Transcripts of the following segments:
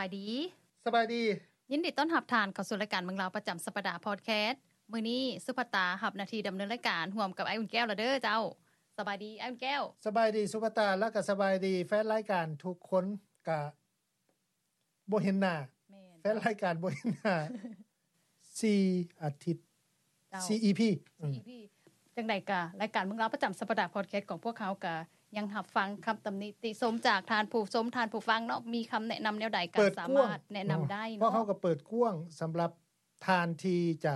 ສະບາຍດີ. ສະບາຍດີ. ຍິນດີຕ້ອນຮັບທ່ານເຂົ້າສູ່ລາຍການເມືອງລາວປະຈຳສັບປະດາພອດແຄສ. ມື້ນີ້ສຸພັດຕາຮັບໜ້າທີ່ດຳເນີນລາຍການຮ່ວມກັບອ້າຍອຸ່ນແກ້ວລະເດີເຈົ້າ. ສະບາຍດີອ້າຍອຸ່ນແກ້ວ. ສະບາຍດີສຸພັດຕາ ແລ້ວກໍສະບາຍດີແຟນລາຍການທຸກຄົນ. ກະບໍ່ເຫັນໜ້າ ແມ່ນ ແຟນລາຍການບໍ່ເຫັນໜ້າ ສີ່ອາທິດ ເຈົ້າ ສີ່ອີພີ ອືມ ສີ່ອີພີ. ຈັ່ງໃດກະລາຍການເມືອງລາວປະຈຳສັບປະດາພອດແຄສຂອງພວກເຮົາກະຍັງຮັບຟັງຄຳຕຳໜິຕິຊົມຈາກທ່ານຜູ້ຊົມ ທ່ານຜູ້ຟັງເນາະ ມີຄຳແນະນຳແນວໃດກະສາມາດແນະນຳໄດ້ເນາະ. ພວກເຮົາກໍເປີດກວ້າງສຳລັບທ່ານທີ່ຈະ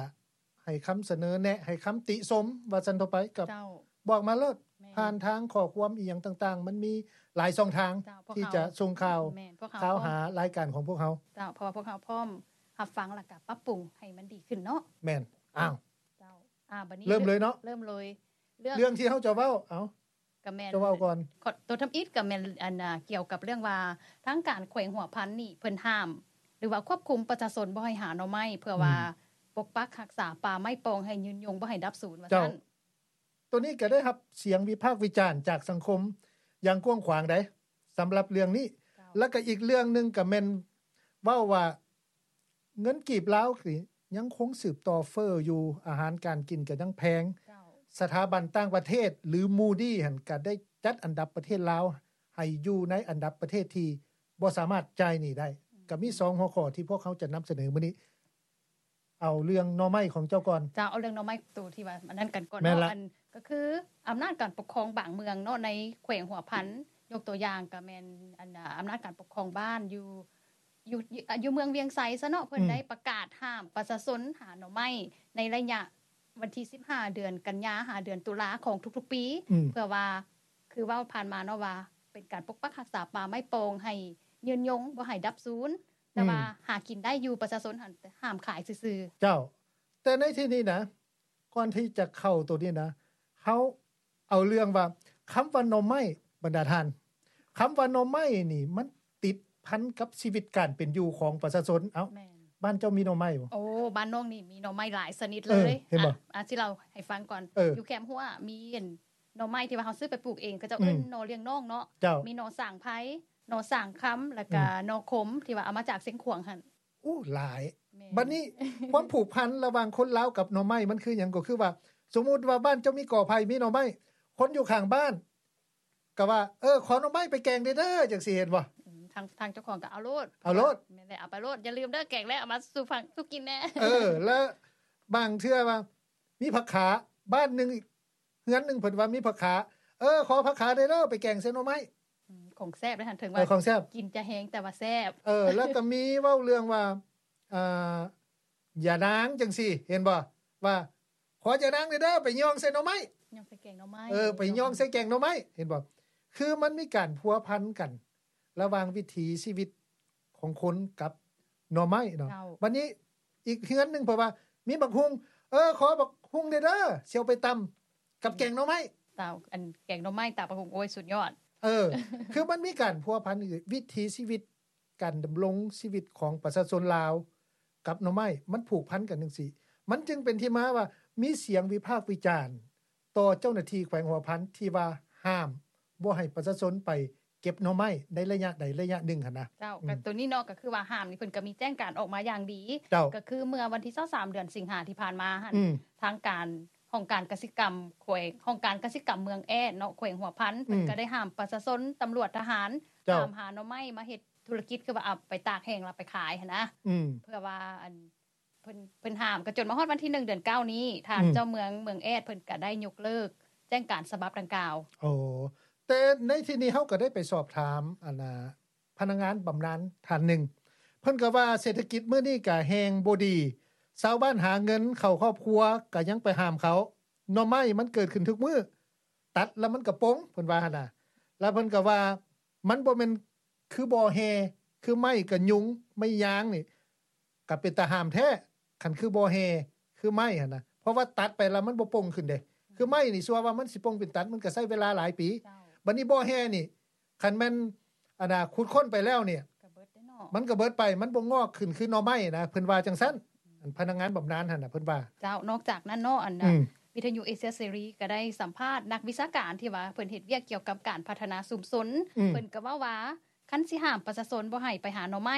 ໃຫ້ຄຳສະເໜີແນະ ໃຫ້ຄຳຕິຊົມວ່າຊັ້ນເຖາະໄປ ກໍ ເຈົ້າ ບອກມາໂລດ ແມ່ນ ຜ່ານທາງຂໍ້ຄວາມອີ່ຫຍັງຕ່າງໆ ມັນມີຫຼາຍຊ່ອງທາງ ເຈົ້າ ທີ່ຈະສົ່ງຂ່າວ ແມ່ນ ພວກເຮົາ ຂ່າວຫາລາຍການຂອງພວກເຮົາ ເຈົ້າ ເພາະວ່າພວກເຮົາພ້ອມຮັບຟັງ ແລ້ວກະປັບປຸງໃຫ້ມັນດີຂຶ້ນເນາະ. ແມ່ນ. ອ້າວ ເຈົ້າ ອ່າ ບັດນີ້ເລີ່ມເລີຍເນາະ ເລີ່ມເລີຍ ເລື່ອງ ເລື່ອງທີ່ເຮົາຈະເວົ້າ ເອົ້າ ກະແມ່ນ ຈະເວົ້າກ່ອນ ໂຕທຳອິດກະແມ່ນ ອັນ ອ່າ ກ່ຽວກັບເລື່ອງວ່າທາງການແຂວງຫົວພັນນີ້ເພິ່ນຫ້າມ ຫຼືວ່າຄວບຄຸມປະຊາຊົນບໍ່ໃຫ້ຫາໜໍ່ໄມ້ ເພື່ອວ່າ ອືມ ປົກປັກຮັກສາປ່າໄມ້ປ່ອງໃຫ້ຍືນຍົງ ບໍ່ໃຫ້ດັບສູນວ່າຊັ້ນ. ໂຕນີ້ກໍໄດ້ຮັບສຽງວິພາກວິຈານຈາກສັງຄົມຢ່າງກວ້າງຂວາງໃດ໋ ສຳລັບເລື່ອງນີ້ ເຈົ້າ ແລ້ວກໍອີກເລື່ອງໜຶ່ງກໍແມ່ນເວົ້າວ່າ ເງິນກີບລາວນີ້ຍັງຄົງສືບຕໍ່ເຟີ້ຢູ່ ອາຫານການກິນກໍຍັງແພງ ເຈົ້າ ສະຖາບັນຕ່າງປະເທດ ຫຼື Moody ຫັ້ນກໍໄດ້ຈັດອັນດັບປະເທດລາວໃຫ້ຢູ່ໃນອັນດັບປະເທດທີ່ບໍ່ສາມາດຈ່າຍໜີ້ໄດ້ ອືມ ກໍມີສອງຫົວຂໍ້ທີ່ພວກເຮົາຈະນຳສະເໜີມື້ນີ້. ເອົາເລື່ອງໜໍ່ໄມ້ຂອງເຈົ້າກ່ອນ. ເຈົ້າ ເອົາເລື່ອງໜໍ່ໄມ້ໂຕທີ່ວ່າອັນນັ້ນກັນກ່ອນເນາະ. ແມ່ນລະ ອັນ ກໍຄືອຳນາດການປົກຄອງບາງເມືອງເນາະ ໃນແຂວງຫົວພັນ ຍົກຕົວຢ່າງກໍແມ່ນ ອັນ ອຳນາດການປົກຄອງບ້ານຢູ່ ຢູ່ ຢູ່ເມືອງວຽງໄຊຊະເນາະ ເພິ່ນ ອືມ ໄດ້ປະກາດຫ້າມປະຊາຊົນຫາໜໍ່ໄມ້ ໃນໄລຍະວັນທີສິບຫ້າ ເດືອນກັນຍາ ຫາເດືອນຕຸລາຂອງທຸກໆປີ ອືມ ເພື່ອວ່າ ຄືເວົ້າຜ່ານມາເນາະວ່າ ເປັນການປົກປັກຮັກສາປ່າໄມ້ປ່ອງໃຫ້ຍືນຍົງ ບໍ່ໃຫ້ດັບສູນ ແຕ່ວ່າ ອືມ ຫາກິນໄດ້ຢູ່ ປະຊາຊົນຫັ້ນຫ້າມຂາຍຊື່ໆ. ເຈົ້າ ແຕ່ໃນທີ່ນີ້ນະ ກ່ອນທີ່ຈະເຂົ້າໂຕນີ້ນະ ເຮົາເອົາເລື່ອງວ່າ ຄຳວ່າໜໍ່ໄມ້ ບັນດາທ່ານ ຄຳວ່າໜໍ່ໄມ້ນີ້ ມັນຕິດພັນກັບຊີວິດການເປັນຢູ່ຂອງປະຊາຊົນ. ເອົ້າ ແມ່ນ ບ້ານເຈົ້າມີໜໍ່ໄມ້ບໍ່? ໂອ້ ບ້ານນ້ອງນີ້ມີໜໍ່ໄມ້ຫຼາຍຊະນິດເລີຍ. ເອີ ເຫັນບໍ່? ອາ ອາ ຊິເລົ່າໃຫ້ຟັງກ່ອນ. ເອີ ຢູ່ແຄມຮົ້ວມີ ອັນ ໜໍ່ໄມ້ທີ່ວ່າເຮົາຊື້ໄປປູກເອງ ເຂົາເຈົ້າເອີ້ນ ອືມ ໜໍ່ລ້ຽງນ້ອງເນາະ. ເຈົ້າ ມີໜໍ່ສ້າງໄພ ໜໍ່ສ້າງຄຳ ແລ້ວກະ ອືມ ໜໍ່ຂົມ ທີ່ວ່າເອົາມາຈາກຊຽງຂວາງຫັ້ນ. ໂອ້ ຫຼາຍ. ແມ່ນ. ບັດນີ້ ຄວາມຜູກພັນລະຫວ່າງຄົນລາວກັບໜໍ່ໄມ້ມັນຄືຫຍັງ? ກໍຄືວ່າ ສົມມຸດວ່າບ້ານເຈົ້າມີກໍໄຜ່ ມີໜໍ່ໄມ້ ຄົນຢູ່ຂ້າງບ້ານກໍວ່າ ເອີ ຂໍໜໍ່ໄມ້ໄປແກງແດ່ເດີ ຈັ່ງຊີ້ ເຫັນບໍ່? ອືມ ທາງ ທາງເຈົ້າຂອງກໍເອົາໂລດ ເອົາໂລດ. ແມ່ນແຫຼະ ເອົາໄປໂລດ ຢ່າລືມເດີ ແກງແລ້ວເອົາມາສູ່ຟັງ ສູ່ກິນແດ່. ເອີ ແລ້ວບາງເທື່ອວ່າ ມີຜັກຂາ ບ້ານໜຶ່ງ ເຮືອນໜຶ່ງເພິ່ນວ່າມີຜັກຂາ ເອີ ຂໍຜັກຂາແດ່ເດີ ໄປແກງໃສ່ໜໍ່ໄມ້. ອືມ ຂອງແຊບເດ້ຫັ້ນ ເຖິງວ່າ ເອີ ຂອງແຊບ ກິນຈະແຮງ ແຕ່ວ່າແຊບ. ເອີ ແລ້ວກໍມີເວົ້າເລື່ອງວ່າ ອ່າ ຢານາງຈັ່ງຊີ້ ເຫັນບໍ່? ວ່າ ຂໍຢານາງແດ່ເດີ ໄປຍ່ອງໃສ່ໜໍ່ໄມ້ ຍ່ອງໃສ່ແກງໜໍ່ໄມ້. ເອີ ໄປຍ່ອງໃສ່ແກງໜໍ່ໄມ້ ເຫັນບໍ່? ຄືມັນມີການພົວພັນກັນ ລະຫວ່າງວິຖີຊີວິດຂອງຄົນກັບໜໍ່ໄມ້ເນາະ. ເຈົ້າ ບັດນີ້ອີກເຮືອນໜຶ່ງ ເພາະວ່າມີບັກຫຸ່ງ ເອີ ຂໍບັກຫຸ່ງແດ່ເດີ ຊິເອົາໄປຕຳກັບແກງໜໍ່ໄມ້. ເຈົ້າ ອັນແກງໜໍ່ໄມ້ຕຳບັກຫຸ່ງ ໂອ້ຍ ສຸດຍອດ. ເອີ ຄືມັນມີການພົວພັນ ວິຖີຊີວິດ ການດຳລົງຊີວິດຂອງປະຊາຊົນລາວກັບໜໍ່ໄມ້ ມັນຜູກພັນກັນຈັ່ງຊີ້ ມັນຈຶ່ງເປັນທີ່ມາວ່າ ມີສຽງວິພາກວິຈານ ຕໍ່ເຈົ້າໜ້າທີ່ແຂວງຫົວພັນທີ່ວ່າຫ້າມບໍ່ໃຫ້ປະຊາຊົນໄປເກັບໜໍ່ໄມ້ໃນໄລຍະໃດໄລຍະໜຶ່ງຫັ້ນນະ. ເຈົ້າ ອືມ ກໍໂຕນີ້ເນາະ ກໍຄືວ່າຫ້າມນີ້ເພິ່ນກໍມີແຈ້ງການອອກມາຢ່າງດີ. ເຈົ້າ ກໍຄືເມື່ອວັນທີຊາວສາມ ເດືອນສິງຫາທີ່ຜ່ານມາຫັ້ນ ອືມ ທາງການ ຫ້ອງການກະສິກຳແຂວງ ຫ້ອງການກະສິກຳເມືອງແອດເນາະ ແຂວງຫົວພັນ ອືມ ເພິ່ນກໍໄດ້ຫ້າມປະຊາຊົນ ຕຳຫຼວດ ທະຫານ ເຈົ້າ ຫ້າມຫາໜໍ່ໄມ້ມາເຮັດທຸລະກິດ ຄືວ່າເອົາໄປຕາກແຫ້ງແລ້ວໄປຂາຍຫັ້ນນະ. ອືມ ເພື່ອວ່າ ອັນ ເພິ່ນ ເພິ່ນຫ້າມ ກໍຈົນມາຮອດວັນທີໜຶ່ງ ເດືອນເກົ້ານີ້ ທ່ານ ອືມ ເຈົ້າເມືອງເມືອງແອດເພິ່ນກໍໄດ້ຍົກເລີກແຈ້ງການສະບັບດັ່ງກ່າວ. ໂອ້ ແຕ່ໃນທີ່ນີ້ເຮົາກໍໄດ້ໄປສອບຖາມ ອັນນ່າ ພະນັກງານບຳນານທ່ານໜຶ່ງ ເພິ່ນກໍວ່າເສດຖະກິດມື້ນີ້ກໍແຮງບໍ່ດີ ຊາວບ້ານຫາເງິນເຂົ້າຄອບຄົວກໍຍັງໄປຫ້າມເຂົາ ໜໍ່ໄມ້ມັນເກີດຂຶ້ນທຸກມື້ ຕັດແລ້ວມັນກໍປົ່ງ ເພິ່ນວ່າຫັ້ນນະ. ແລ້ວເພິ່ນກໍວ່າ ມັນບໍ່ແມ່ນຄືບໍ່ແຮ່ ຄືໄມ້ກໍຍຸງ ໄມ້ຍາງນີ້ ກໍເປັນຕາຫ້າມແທ້ ຄັນຄືບໍ່ແຮ່ ຄືໄມ້ຫັ້ນນະ ເພາະວ່າຕັດໄປແລ້ວມັນບໍ່ປົ່ງຂຶ້ນເດ້. ຄືໄມ້ນີ້ ຊົ່ວວ່າມັນຊິປົ່ງເປັນຕັດ ມັນກໍໃຊ້ເວລາຫຼາຍປີ. ເຈົ້າ ບັດນີ້ບໍ່ແຮ່ນີ້ ຄັນແມ່ນ ອັນນ່າ ຂຸດຄົ້ນໄປແລ້ວນີ້ ກໍເບິດເດ້ເນາະ ມັນກໍເບິດໄປ ມັນບໍ່ງອກຂຶ້ນຄືໜໍ່ໄມ້ນະ ເພິ່ນວ່າຈັ່ງຊັ້ນ. ອືມ ອັນພະນັກງານບຳນານຫັ້ນນະ ເພິ່ນວ່າ. ເຈົ້າ ນອກຈາກນັ້ນເນາະ ອັນ ອືມ ວິທະຍຸເອເຊຍເສລີກໍໄດ້ສຳພາດນັກວິຊາການທີ່ວ່າເພິ່ນເຮັດວຽກກ່ຽວກັບການພັດທະນາຊຸມຊົນ. ອືມ ເພິ່ນກໍເວົ້າວ່າ ຄັນຊິຫ້າມປະຊາຊົນບໍ່ໃຫ້ໄປຫາໜໍ່ໄມ້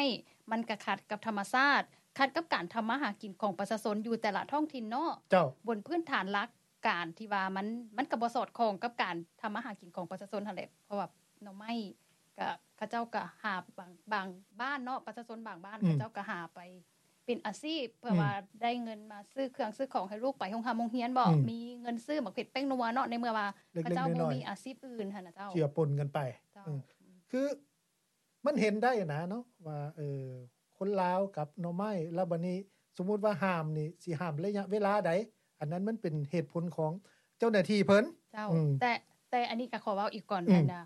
ມັນກະຂັດກັບທຳມະຊາດ, ຂັດກັບການທຳມາຫາກິນຂອງປະຊາຊົນຢູ່ແຕ່ລະທ້ອງຖິ່ນເນາະ. ເຈົ້າ. ບົນພື້ນຖານຫຼັກການທີ່ວ່າມັນ, ມັນກະບໍ່ສອດຄ່ອງກັບການທຳມາຫາກິນຂອງປະຊາຊົນຫັ້ນແຫຼະ, ເພາະວ່າໜໍ່ໄມ້ກະ ເຂົາເຈົ້າກະຫາບາງ, ບາງບ້ານເນາະ, ປະຊາຊົນບາງບ້ານ ອືມ ເຂົາເຈົ້າກະຫາໄປເປັນອາຊີບ ເພື່ອ ອືມ ວ່າໄດ້ເງິນມາຊື້ເຄື່ອງຊື້ຂອງໃຫ້ລູກໄປໂຮງຮ່ຳໂຮງຮຽນບໍ, ອືມ ມີເງິນຊື້ໝາກເຜັດແປ້ງນົວເນາະ, ໃນເມື່ອວ່າເຂົາເຈົ້າບໍ່ມີອາຊີບອື່ນຫັ້ນນະເຈົ້າ. ເຈືອປົນກັນໄປ. ເຈົ້າ. ອືມ. ອືມ. ຄື ມັນເຫັນໄດ້ນະເນາະວ່າ ເອີ ຄົນລາວກັບໜໍ່ໄມ້ ແລ້ວບັດນີ້ສົມມຸດວ່າຫ້າມນີ້ ຊິຫ້າມໄລຍະເວລາໃດ? ອັນນັ້ນມັນເປັນເຫດຜົນຂອງເຈົ້າໜ້າທີ່ເພິ່ນ. ເຈົ້າ. ອືມ. ແຕ່ ແຕ່ອັນນີ້ກໍຂໍເວົ້າອີກກ່ອນ. ອືມ. ອັນນະ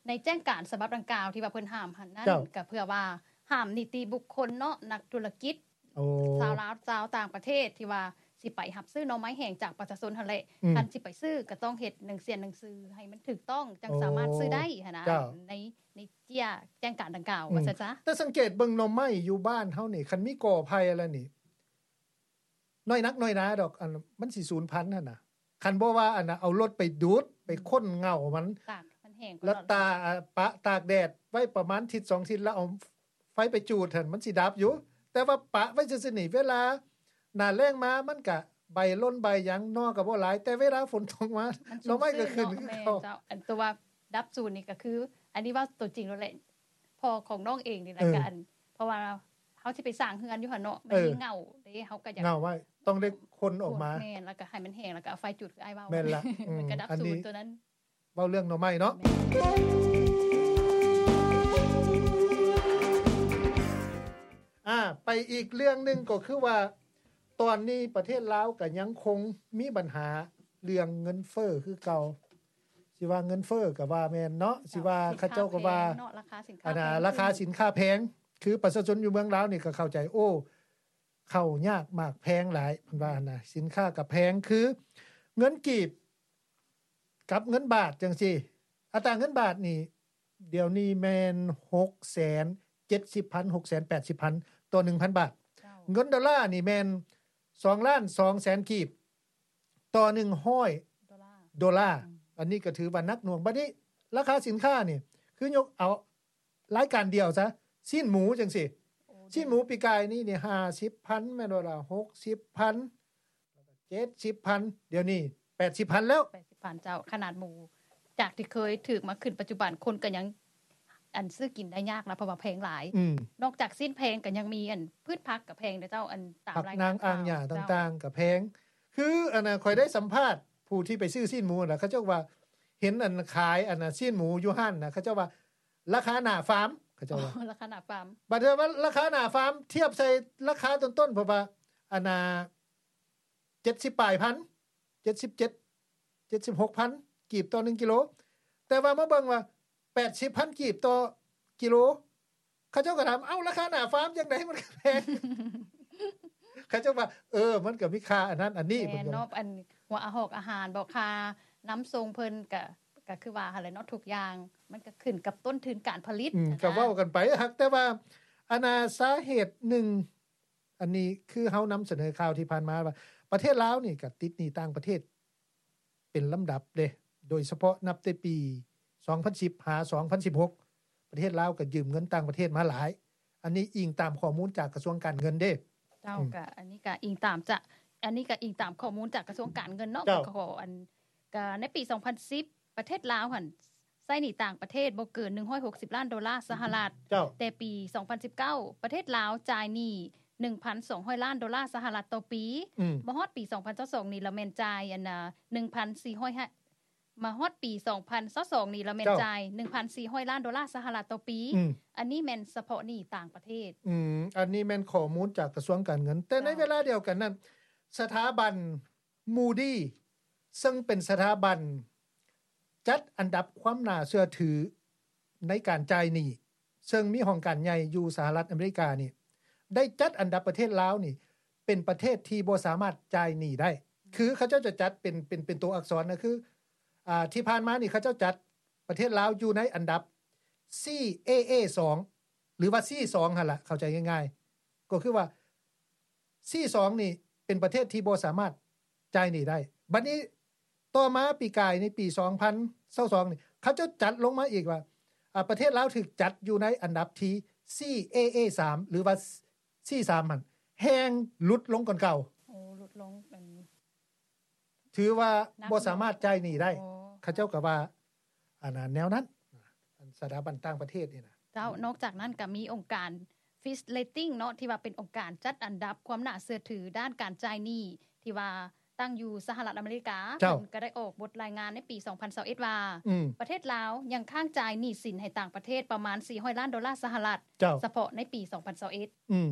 ໃນແຈ້ງການສະບັບດັ່ງກ່າວທີ່ວ່າເພິ່ນຫ້າມຫັ້ນນັ້ນ ເຈົ້າ ກໍເພື່ອວ່າຫ້າມນິຕິບຸກຄົນເນາະ, ນັກທຸລະກິດ ໂອ້ ຊາວລາວ ຊາວຕ່າງປະເທດທີ່ວ່າຊິໄປຮັບຊື້ໜໍ່ໄມ້ແຫ້ງຈາກປະຊາຊົນຫັ້ນແຫຼະ. ອືມ. ຄັນຊິໄປຊື້ກໍຕ້ອງເຮັດໜັງເສຍໜັງສືໃຫ້ມັນຖືກຕ້ອງ ຈັ່ງ ໂອ້ ສາມາດຊື້ໄດ້ຫັ້ນນະ. ເຈົ້າ. ໃນ ໃນເຈ້ຍແຈ້ງການດັ່ງກ່າວ ອືມ ວ່າຊັ້ນຊະ. ແຕ່ສັງເກດເບິ່ງໜໍ່ໄມ້ຢູ່ບ້ານເຮົານີ້ ຄັນມີກໍໄຜ່ແລ້ວນີ້ ນ້ອຍນັກນ້ອຍໜາດອກ ອັນ ມັນຊິສູນພັນຫັ້ນນະ. ຄັນບໍ່ວ່າ ອັນນະ ເອົາລົດໄປດູດ ໄປຄົ້ນເຫງົ້າມັນ ຕາກມັນແຫ້ງ ແລ້ວຕາ ປະຕາກແດດໄວ້ປະມານທິດສອງທິດ ແລ້ວເອົາໄຟໄປຈູດຫັ້ນ ມັນຊິດັບຢູ່. ແຕ່ວ່າປະໄວ້ຊື່ໆນີ້ ເວລາໜ້າແລ້ງມາ ມັນກະໃບຫຼົ່ນໃບຫຍັງ ໜໍ່ກໍບໍ່ຫຼາຍ, ແຕ່ເວລາຝົນຕົກມາ ໜໍ່ໄມ້ກໍຂຶ້ນຄືເກົ່າ. ແມ່ນເຈົ້າ. ອັນຕົວວ່າດັບສູນນີ້ກໍຄື ອັນນີ້ເວົ້າຕົວຈິງໂລດແຫຼະ ພໍ່ຂອງນ້ອງເອງນີ້ແຫຼະ. ເອີ ກໍອັນ ເພາະວ່າເຮົາຊິໄປສ້າງເຮືອນຢູ່ຫັ້ນເນາະ ມັນມີ ເອີ ເຫງົ້າເດ້ ເຮົາກໍຢາກ ເຫງົ້າໄວ້ ຕ້ອງໄດ້ຄົ້ນອອກມາ. ແມ່ນ. ແລ້ວກໍໃຫ້ມັນແຫ້ງ ແລ້ວກໍເອົາໄຟຈູດ ຄືອ້າຍເວົ້າ. ແມ່ນລະ. ອືມ. ມັນກໍດັບສູນ ອັນນີ້ ຕົວນັ້ນ ເວົ້າເລື່ອງໜໍ່ໄມ້ເນາະ. ແມ່ນ. ອ່າ ໄປອີກເລື່ອງໜຶ່ງ ກໍຄືວ່າ ຕອນນີ້ປະເທດລາວກໍຍັງຄົງມີບັນຫາເລື່ອງເງິນເຟີ້ຄືເກົ່າ. ຊິວ່າເງິນເຟີ້ກໍວ່າແມ່ນເນາະ, ເຈົ້າ ຊິວ່າເຂົາເຈົ້າກໍວ່າ ສິນຄ້າແພງເນາະ, ລາຄາສິນຄ້າ ອັນນະ ແພງຂຶ້ນ ລາຄາສິນຄ້າແພງ. ຄືປະຊາຊົນຢູ່ເມືອງລາວນີ້ກໍເຂົ້າໃຈ, ໂອ້ ເຂົ້າຍາກໝາກແພງຫຼາຍ ເພິ່ນວ່າຫັ້ນນະ, ສິນຄ້າກໍແພງ. ຄືເງິນກີບກັບເງິນບາດຈັ່ງຊີ້, ອັດຕາເງິນບາດນີ້ ດຽວນີ້ແມ່ນຫົກແສນເຈັດສິບພັນ ຫົກແສນແປດສິບພັນ ຕໍ່ໜຶ່ງພັນບາດ. ເຈົ້າ. ເງິນໂດລານີ້ແມ່ນສອງລ້ານສອງແສນກີບຕໍ່ໜຶ່ງຮ້ອຍໂດລາ. ໂດລາ. ອືມ. ອັນນີ້ກໍຖືວ່າໜັກໜ່ວງ. ບັດນີ້ລາຄາສິນຄ້ານີ້ ຄືຍົກເອົາລາຍການດຽວຊະ, ຊີ້ນໝູຈັ່ງຊີ້. ໂອ້ ຊີ້ນໝູປີກາຍນີ້ນີ້ຫ້າສິບພັນ ແມ່ນບໍ່ລະ? ຫົກສິບພັນ ເຈັດສິບພັນ ດຽວນີ້ແປດສິບພັນແລ້ວ. ແປດສິບພັນ ເຈົ້າ. ຂະໜາດໝູຈາກທີ່ເຄີຍຖືກມາຂຶ້ນປັດຈຸບັນ ຄົນກໍຍັງ ອັນ ຊື້ກິນໄດ້ຍາກນະ ເພາະວ່າແພງຫຼາຍ. ອືມ. ນອກຈາກຊີ້ນແພງກໍຍັງມີ ອັນ ພືດຜັກກໍແພງເດ້ເຈົ້າ, ອັນ ຕາມ ຜັກ ລາຍງານ ນາງ ອ່າງຫຍ້າຕ່າງໆກໍແພງ. ຄື ອັນນະ ຂ້ອຍໄດ້ສຳພາດຜູ້ທີ່ໄປຊື້ຊີ້ນໝູນະ, ເຂົາເຈົ້າວ່າເຫັນ ອັນ ຂາຍ ອັນນະ ຊີ້ນໝູຢູ່ຮ້ານນະ, ເຂົາເຈົ້າວ່າລາຄາໜ້າຟາມ, ເຂົາເຈົ້າວ່າ ອໍ ລາຄາໜ້າຟາມ. ບັດວ່າລາຄາໜ້າຟາມທຽບໃສ່ລາຄາຕົ້ນໆ ເພາະວ່າ ອັນນະ ເຈັດສິບປາຍພັນ ເຈັດສິບເຈັດ ເຈັດສິບຫົກພັນກີບຕໍ່ໜຶ່ງກິໂລ, ແຕ່ວ່າມາເບິ່ງວ່າແປດສິບພັນກີບຕໍ່ກິໂລ. ເຂົາເຈົ້າກໍຖາມ, ເອົ້າ ລາຄາໜ້າຟາມຈັ່ງໃດມັນກໍແພງ? ເຂົາເຈົ້າວ່າ ເອີ ມັນກໍມີຄ່າອັນນັ້ນອັນນີ້. ແມ່ນເນາະ, ອັນ ຫົວອາຫອກອາຫານບໍ ຄ່ານຳສົ່ງເພິ່ນ ກໍ ກໍຄືວ່າຫັ້ນແຫຼະເນາະ, ທຸກຢ່າງມັນກໍຂຶ້ນກັບຕົ້ນທຶນການຜະລິດ. ອືມ ນະ ກໍເວົ້າກັນໄປ. ຫາກແຕ່ວ່າ ອັນນາ ສາເຫດໜຶ່ງ ອັນນີ້ຄືເຮົານຳສະເໜີຂ່າວທີ່ຜ່ານມາວ່າ ປະເທດລາວນີ້ກໍຕິດໜີ້ຕ່າງປະເທດເປັນລຳດັບເດ້, ໂດຍສະເພາະນັບແຕ່ປີສອງພັນສິບຫາສອງພັນສິບຫົກ ປະເທດລາວກໍຢືມເງິນຕ່າງປະເທດມາຫຼາຍ. ອັນນີ້ອີງຕາມຂໍ້ມູນຈາກກະຊວງການເງິນເດ້. ເຈົ້າ. ອືມ. ກໍອັນນີ້ກໍອີງຕາມຈະ ອັນນີ້ກໍອີງຕາມຂໍ້ມູນຈາກກະຊວງການເງິນເນາະ. ເຈົ້າ. ກໍ ອັນ ກໍໃນປີສອງພັນສິບ ປະເທດລາວຫັ້ນ ໃຊ້ໜີ້ຕ່າງປະເທດບໍ່ເກີນໜຶ່ງຮ້ອຍຫົກສິບລ້ານໂດລາສະຫະລັດ. ເຈົ້າ. ແຕ່ປີສອງພັນສິບເກົ້າ ປະເທດລາວຈ່າຍໜີ້ໜຶ່ງພັນສອງຮ້ອຍລ້ານໂດລາສະຫະລັດຕໍ່ປີ. ອືມ. ມາຮອດປີສອງພັນຊາວສອງນີ້ລະແມ່ນຈ່າຍ ອັນນະ ໜຶ່ງພັນສີ່ຮ້ອຍ ມາຮອດປີສອງພັນຊາວສອງນີ້ລະແມ່ນ ເຈົ້າ ຈ່າຍໜຶ່ງພັນສີ່ຮ້ອຍລ້ານໂດລາສະຫະລັດຕໍ່ປີ. ອືມ. ອັນນີ້ແມ່ນສະເພາະໜີ້ຕ່າງປະເທດ. ອືມ. ອັນນີ້ແມ່ນຂໍ້ມູນຈາກກະຊວງການເງິນ. ແຕ່ໃນ ເຈົ້າ ເວລາດຽວກັນນັ້ນ ສະຖາບັນ Moody ເຊິ່ງເປັນສະຖາບັນຈັດອັນດັບຄວາມໜ້າເຊື່ອຖືໃນການຈ່າຍໜີ້, ເຊິ່ງມີຫ້ອງການໃຫຍ່ຢູ່ສະຫະລັດອາເມລິການີ້ ໄດ້ຈັດອັນດັບປະເທດລາວນີ້ເປັນປະເທດທີ່ບໍ່ສາມາດຈ່າຍໜີ້ໄດ້. ຄືເຂົາເຈົ້າຈະຈັດເປັນ ເປັນ ເປັນຕົວອັກສອນນະ, ຄື ອ່າ ທີ່ຜ່ານມານີ້ເຂົາເຈົ້າຈັດປະເທດລາວຢູ່ໃນອັນດັບ C A A ສອງ ຫຼືວ່າ C ສອງຫັ້ນລະ, ເຂົ້າໃຈງ່າຍໆ ກໍຄືວ່າ C ສອງນີ້ເປັນປະເທດທີ່ບໍ່ສາມາດຈ່າຍໜີ້ໄດ້. ບັດນີ້ຕໍ່ມາປີກາຍໃນປີສອງພັນຊາວສອງນີ້ ເຂົາເຈົ້າຈັດລົງມາອີກວ່າ ອາ ປະເທດລາວຖືກຈັດຢູ່ໃນອັນດັບທີ CAA ສາມ ຫຼືວ່າ C ສາມຫັ້ນ ແຮ່ງຫຼຸດລົງກ່ອນເກົ່າ. ໂອ້ ຫຼຸດລົງ ອັນ ຖືວ່າບໍ່ສາມາດຈ່າຍໜີ້ໄດ້. ໂອ້ ເຂົາເຈົ້າກໍວ່າ ອັນນັ້ນ ແນວນັ້ນ ອັນສະຖາບັນຕ່າງປະເທດນີ້ນະ. ເຈົ້າ ນອກຈາກນັ້ນກໍມີອົງການ Fitch Ratings ເນາະ ທີ່ວ່າເປັນອົງການຈັດອັນດັບຄວາມໜ້າເຊື່ອຖືດ້ານການຈ່າຍໜີ້ ທີ່ວ່າຕັ້ງຢູ່ສະຫະລັດອາເມລິກາ. ເຈົ້າ ເພິ່ນກໍໄດ້ອອກບົດລາຍງານໃນປີສອງພັນຊາວເອັດ ວ່າ ອືມ ປະເທດລາວຍັງຄ້າງຈ່າຍໜີ້ສິນໃຫ້ຕ່າງປະເທດປະມານສີ່ຮ້ອຍລ້ານໂດລາສະຫະລັດ. ເຈົ້າ ສະເພາະໃນປີສອງພັນຊາວເອັດ. ອືມ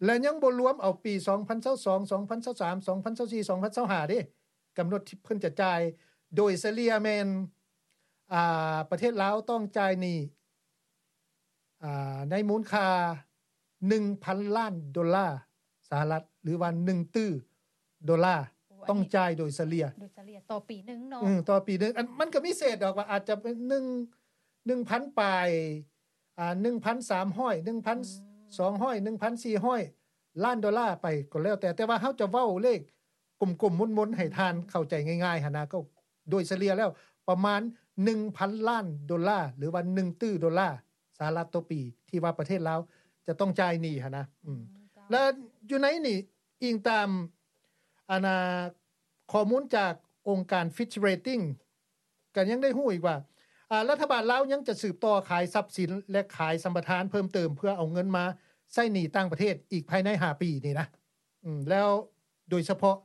ແລະ ຍັງບໍ່ລວມເອົາປີສອງພັນຊາວສອງ ສອງພັນຊາວສາມ ສອງພັນຊາວສີ່ ສອງພັນຊາວຫ້າເດ້ ກຳນົດທີ່ເພິ່ນຈະຈ່າຍ ໂດຍສະເລ່ຍແມ່ນ ອ່າ ປະເທດລາວຕ້ອງຈ່າຍໜີ້ ອ່າ ໃນມູນຄ່າໜຶ່ງພັນລ້ານໂດລາສະຫະລັດ ຫຼືວ່າໜຶ່ງຕື້ໂດລາ. ໂອ້ ອັນນີ້ ຕ້ອງຈ່າຍໂດຍສະເລ່ຍ ໂດຍສະເລ່ຍຕໍ່ປີໜຶ່ງເນາະ. ອືມ ຕໍ່ປີໜຶ່ງ ອັນ ມັນກໍມີເສດດອກ ວ່າອາດຈະເປັນໜຶ່ງ ໜຶ່ງພັນປາຍ ອ່າ ໜຶ່ງພັນສາມຮ້ອຍ ໜຶ່ງພັນສອງຮ້ອຍ ອືມ ໜຶ່ງພັນສີ່ຮ້ອຍລ້ານໂດລາໄປກໍແລ້ວແຕ່ ແຕ່ວ່າເຮົາຈະເວົ້າເລກກົມໆມົນໆ ໃຫ້ທ່ານເຂົ້າໃຈງ່າຍໆຫັ້ນນະ ກໍໂດຍສະເລ່ຍແລ້ວປະມານໜຶ່ງພັນລ້ານໂດລາ ຫຼືວ່າໜຶ່ງຕື້ໂດລາສະຫະລັດຕໍ່ປີ ທີ່ວ່າປະເທດລາວຈະຕ້ອງຈ່າຍໜີ້ຫັ້ນນະ. ອືມ ອືມ ເຈົ້າ ແລະ ຢູ່ໃນນີ້ ອີງຕາມ ອັນນາ ຂໍ້ມູນຈາກອົງການ Fitch Ratings ກໍຍັງໄດ້ຮູ້ອີກວ່າ ອາ ລັດຖະບານລາວຍັງຈະສືບຕໍ່ຂາຍຊັບສິນ ແລະ ຂາຍສຳປະທານເພີ່ມເຕີມ ເພື່ອເອົາເງິນມາໃຊ້ໜີ້ຕ່າງປະເທດອີກພາຍໃນຫ້າປີນີ້ນະ. ອືມ ແລ້ວໂດຍສະເພາະ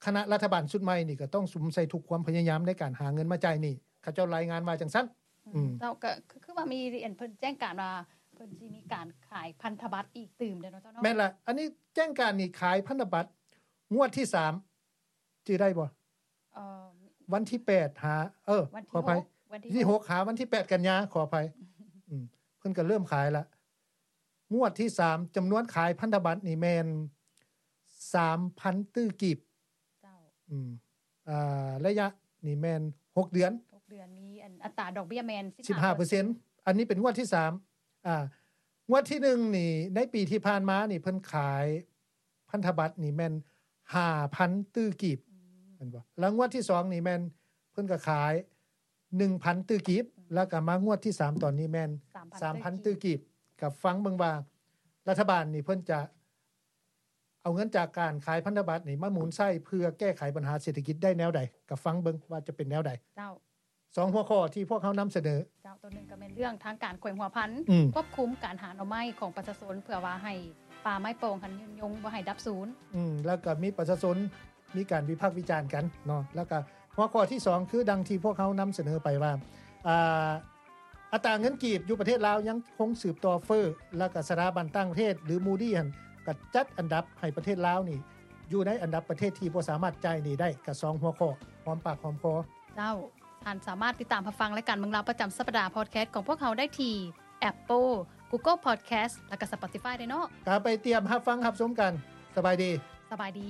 ຄະນະລັດຖະບານຊຸດໃໝ່ນີ້ ກໍຕ້ອງສຸມໃສ່ທຸກຄວາມພະຍາຍາມໃນການຫາເງິນມາຈ່າຍໜີ້ ເຂົາເຈົ້າລາຍງານວ່າຈັ່ງຊັ້ນ. ອືມ ອືມ ເຈົ້າ ກໍຄື ຄືວ່າມີ ອັນ ເພິ່ນແຈ້ງການວ່າ ເພິ່ນຊິມີການຂາຍພັນທະບັດອີກຕື່ມເດ້ເນາະ ເຈົ້າເນາະ. ແມ່ນລະ ອັນນີ້ແຈ້ງການນີ້ຂາຍພັນທະບັດງວດທີສາມ ຈື່ໄດ້ບໍ່? ເອີ ວັນທີແປດຫາ ເອີ ວັນທີຫົກ ຂໍອະໄພ ວັນທີຫົກ ທີຫົກຫາວັນທີແປດກັນຍາ ຂໍອະໄພ. ອືມ ເພິ່ນກໍເລີ່ມຂາຍລະ ງວດທີສາມ ຈຳນວນຂາຍພັນທະບັດນີ້ແມ່ນສາມພັນຕື້ກີບ. ເຈົ້າ ອືມ ອ່າ ໄລຍະນີ້ແມ່ນຫົກເດືອນ ຫົກເດືອນ ມີອັນ ອັດຕາດອກເບ້ຍແມ່ນສິບຫ້າເປີເຊັນ. ສິບຫ້າເປີເຊັນ ອັນນີ້ເປັນງວດທີສາມ. ອ່າ ງວດທີໜຶ່ງນີ້ ໃນປີທີ່ຜ່ານມານີ້ ເພິ່ນຂາຍພັນທະບັດນີ້ແມ່ນຫ້າພັນຕື້ກີບ. ອືມ ແມ່ນບໍ່? ແລ້ວງວດທີສອງນີ້ແມ່ນເພິ່ນກໍຂາຍໜຶ່ງພັນຕື້ກີບ ອືມ ແລ້ວກໍມາງວດທີສາມຕອນນີ້ແມ່ນສາມພັນ ສາມພັນຕື້ກີບ. ກໍຟັງເບິ່ງວ່າລັດຖະບານນີ້ເພິ່ນຈະ ເອົາເງິນຈາກການຂາຍພັນທະບັດນີ້ມາໝູນໃຊ້ເພື່ອແກ້ໄຂບັນຫາເສດຖະກິດໄດ້ແນວໃດ ກໍຟັງເບິ່ງວ່າຈະເປັນແນວໃດ. ເຈົ້າ ສອງຫົວຂໍ້ທີ່ພວກເຮົານຳສະເໜີ. ເຈົ້າ ຕົວໜຶ່ງກໍແມ່ນເລື່ອງທາງການແຂວງຫົວພັນ ອືມ ຄວບຄຸມການຫາໜໍ່ໄມ້ຂອງປະຊາຊົນ ເພື່ອວ່າໃຫ້ປ່າໄມ້ປ່ອງຫັ້ນຍືນຍົງ ບໍ່ໃຫ້ດັບສູນ. ອືມ ແລ້ວກໍມີປະຊາຊົນມີການວິພາກວິຈານກັນເນາະ. ແລ້ວກໍຫົວຂໍ້ທີສອງ ຄືດັ່ງທີ່ພວກເຮົານຳສະເໜີໄປວ່າ ອ່າ ອັດຕາເງິນກີບຢູ່ປະເທດລາວຍັງຄົງສືບຕໍ່ເຟີ້ ແລ້ວກໍສະຖາບັນຕ່າງປະເທດ ຫຼື Moody ຫັ້ນ ກໍຈັດອັນດັບໃຫ້ປະເທດລາວນີ້ຢູ່ໃນອັນດັບປະເທດທີ່ບໍ່ສາມາດຈ່າຍໜີ້ໄດ້ ກໍສອງຫົວຂໍ້ ຫອມປາກຫອມຄໍ. ເຈົ້າ ທ່ານສາມາດຕິດຕາມຮັບຟັງລາຍການເມືອງລາວປະຈຳສັບປະດາ podcast ຂອງພວກເຮົາໄດ້ທີ່ Apple, Google Podcast ແລ້ວກໍ Spotify ໄດ້ເນາະ. ກໍໄປຕຽມຮັບຟັງຮັບຊົມກັນ. ສະບາຍດີ. ສະບາຍດີ.